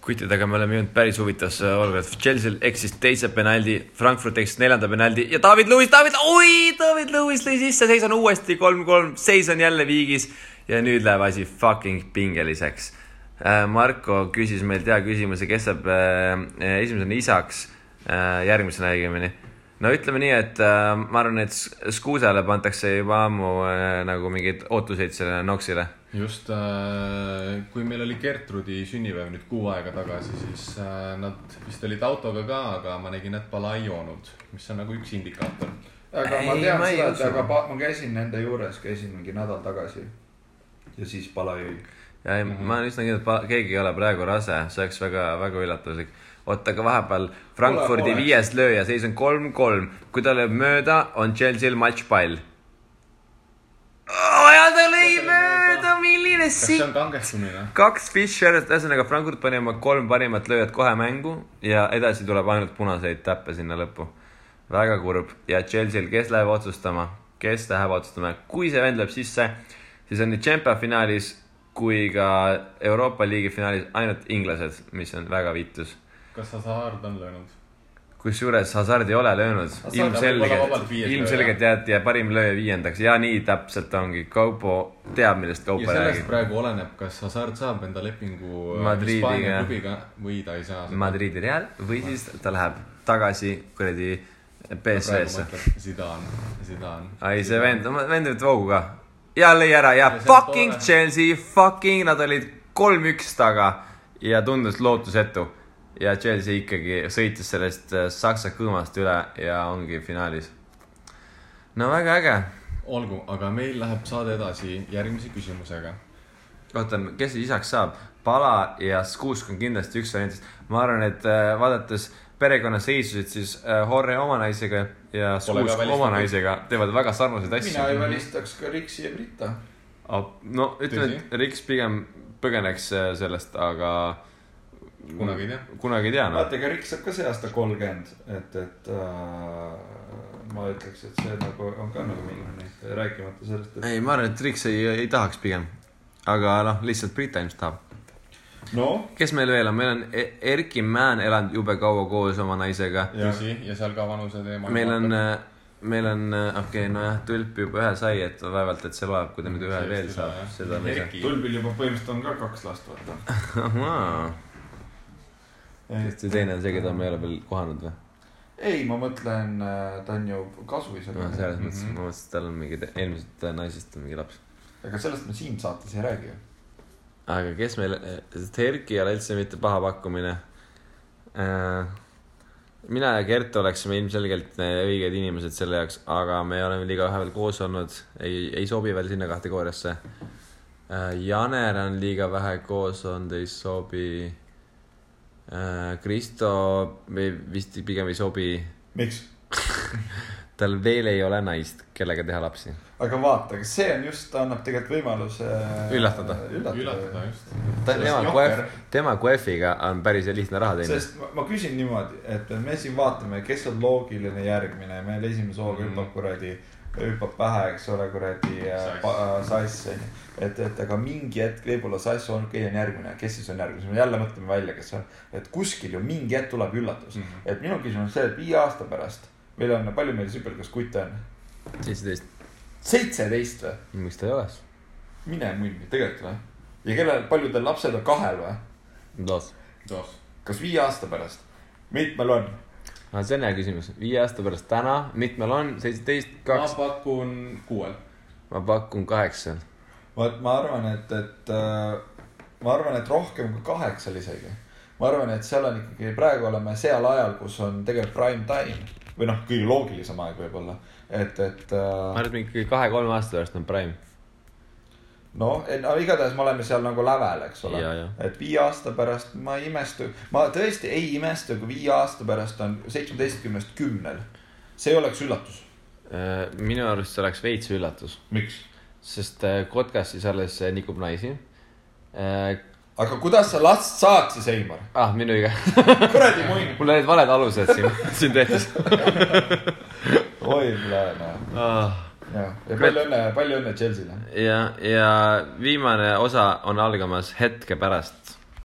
Kuttidega me oleme jõudnud päris huvitavasse olukorda. Chelsea eksis teise penaldi, Frankfurt eksis 4. penaldi ja David Lewis lõi sisse, seis on uuesti 3-3, seis on jälle viigis ja nüüd läheb asi fucking pingeliseks. Marko küsis meilt hea küsimuse, kes saab esimesena isaks järgmisena õigemini. No ütleme nii, et ma arvan, et Skuusale pantakse juba ammu nagu mingid ootuseid selle Noxile. Just, kui meil oli Gertrudi sünnipäev nüüd 6 aega tagasi, siis nad vist olid autoga ka, aga ma nägin, et pala ei joonud, mis on nagu üks indikaator. Aga ma tean seda, et aga ma käisin nende juures, käisin mingi nädal tagasi ja siis pala jõi. Ja ma olen üsna kindel, et keegi ei ole praegu rase, see oleks väga, väga üllatuslik. Oota, aga vahepeal Frankfurdi 5. lööja, seis on 3-3. Kui ta lööb mööda, on Chelsea'l matchpall. Ja ta lõi mööda, milline Kas see on kangestumine? 2 Fischer, ühesõnaga Frankfurt pani oma 3 parimat lööjat kohe mängu ja edasi tuleb ainult punaseid täppe sinna lõppu. Väga kurb. Ja Chelsea'l, kes läheb otsustama? Kui see vend läheb sisse, siis on nii Champions finaalis kui ka Euroopa Liigi finaalis ainult inglased, mis on väga viitus. Kas Hazard on löönud? Kusjuures Hazard ei ole löönud. Ilmselgelt jäeti ja parim lööja 5. Ja nii täpselt ongi. Kaupo teab, millest Kaupo räägib. Ja sellest praegu oleneb, kas Hazard saab enda lepingu Hispaania klubiga või ta ei saa. Madridi Real või siis ta läheb tagasi kuradi PSV-sse. Zidane. Ai, see vend nüüd voogu ka. Ja lõi ära ja fucking Chelsea, nad olid 3-1 taga ja tundus lootusetu. Ja Chelsea ikkagi sõitis sellest Saksa kõõmast üle ja ongi finaalis. No väga äge. Olgu, aga meil läheb saade edasi järgmise küsimusega. Ootan, kes isaks saab? Pala ja Skuusk on kindlasti üks variantist. Ma arvan, et vaadates perekonna seisusid, siis Horre oma naisega ja Skuusk oma naisega teevad väga sarnaseid asju. Mina ei välistaks ka Riksi ja Brita. No ütleme, et Riks pigem põgeneks sellest, aga kunagi ei tea. Vaata, ega Riks saab ka see aasta 30, et ma ütleks, et see nagu on ka nagu mingi rääkimata sellest, et... Ei, ma arvan, et Riks ei tahaks pigem. Aga lihtsalt Brita ilmselt tahab. No? Kes meil veel on? Meil on Erki Mään elanud jube kaua koos oma naisega. Ja seal ka vanuse teema. Meil on Tulp juba ühe sai, et vaevalt, et see loeb, kui ta nüüd ühe veel saab. Tulbil juba põhimõtteliselt on ka 2 last, vaata. Sest teine on see, keda me ei ole veel kohanud või? Ei, ma mõtlen, ta on ju kasuisa. Selles mõttes, ma mõtlesin, et tal on mingi eelmisest naisest mingi laps. Aga sellest me siin saates ei räägi. Aga kes meil, Erki ei ole üldse mitte paha pakkumine. Mina ja Gert oleksime ilmselgelt õiged inimesed selle jaoks, aga me oleme liiga vähe veel koos olnud. Ei sobi veel sinna kategooriasse. Janer on liiga vähe koos olnud, ei sobi... Kristo vist pigem ei sobi. Miks? Tal veel ei ole naist, kellega teha lapsi. Aga vaata, see on just, ta annab tegelikult võimaluse üllatada just. Tema QF-iga on päris lihtne raha teine. Sest ma küsin niimoodi, et me siin vaatame, kes on loogiline järgmine. Meil esimese hooga hüppab pähe, eks ole, kuradi Sass. Et aga mingi hetk võib-olla Sass on järgmine. Kes siis on järgmine? Me jälle mõtleme välja, kes on. Et kuskil ju mingi hetk tuleb üllatus. Et minu küsimus on see, et 5 aasta pärast meil on, palju meil süpelgas kutt on? 17 või? Miks ta ei oleks? Mine munni, tegelikult või? Ja paljudel lapsed on 2 või? Dos. Kas 5 aasta pärast? Mitmel on? See on hea küsimus. 5 aasta pärast täna, mitmel on? 17, 2? Ma pakun 6. Ma pakun 8. Ma arvan, et rohkem kui 8 isegi. Ma arvan, et seal on ikkagi, praegu oleme seal ajal, kus on tegelikult prime time. Või kõige loogilisem aeg võib-olla. Ma arvan, et mingi 2-3 aasta pärast on prime. No, igatahes me oleme seal nagu lävel, eks ole. Et 5 aasta pärast ma tõesti ei imestu, kui 5 aasta pärast on 17-st 10. See oleks üllatus. Minu arust see oleks veits üllatus. Miks? Sest Kotkas siis alles nikub naisi. Aga kuidas sa last saad siis, Eimar? Minu iga. Kuradi muin. Mul olid valed alused siin tehtis. Oi, pläne. Ja palju õnne Chelsea'le. Ja viimane osa on algamas hetke pärast.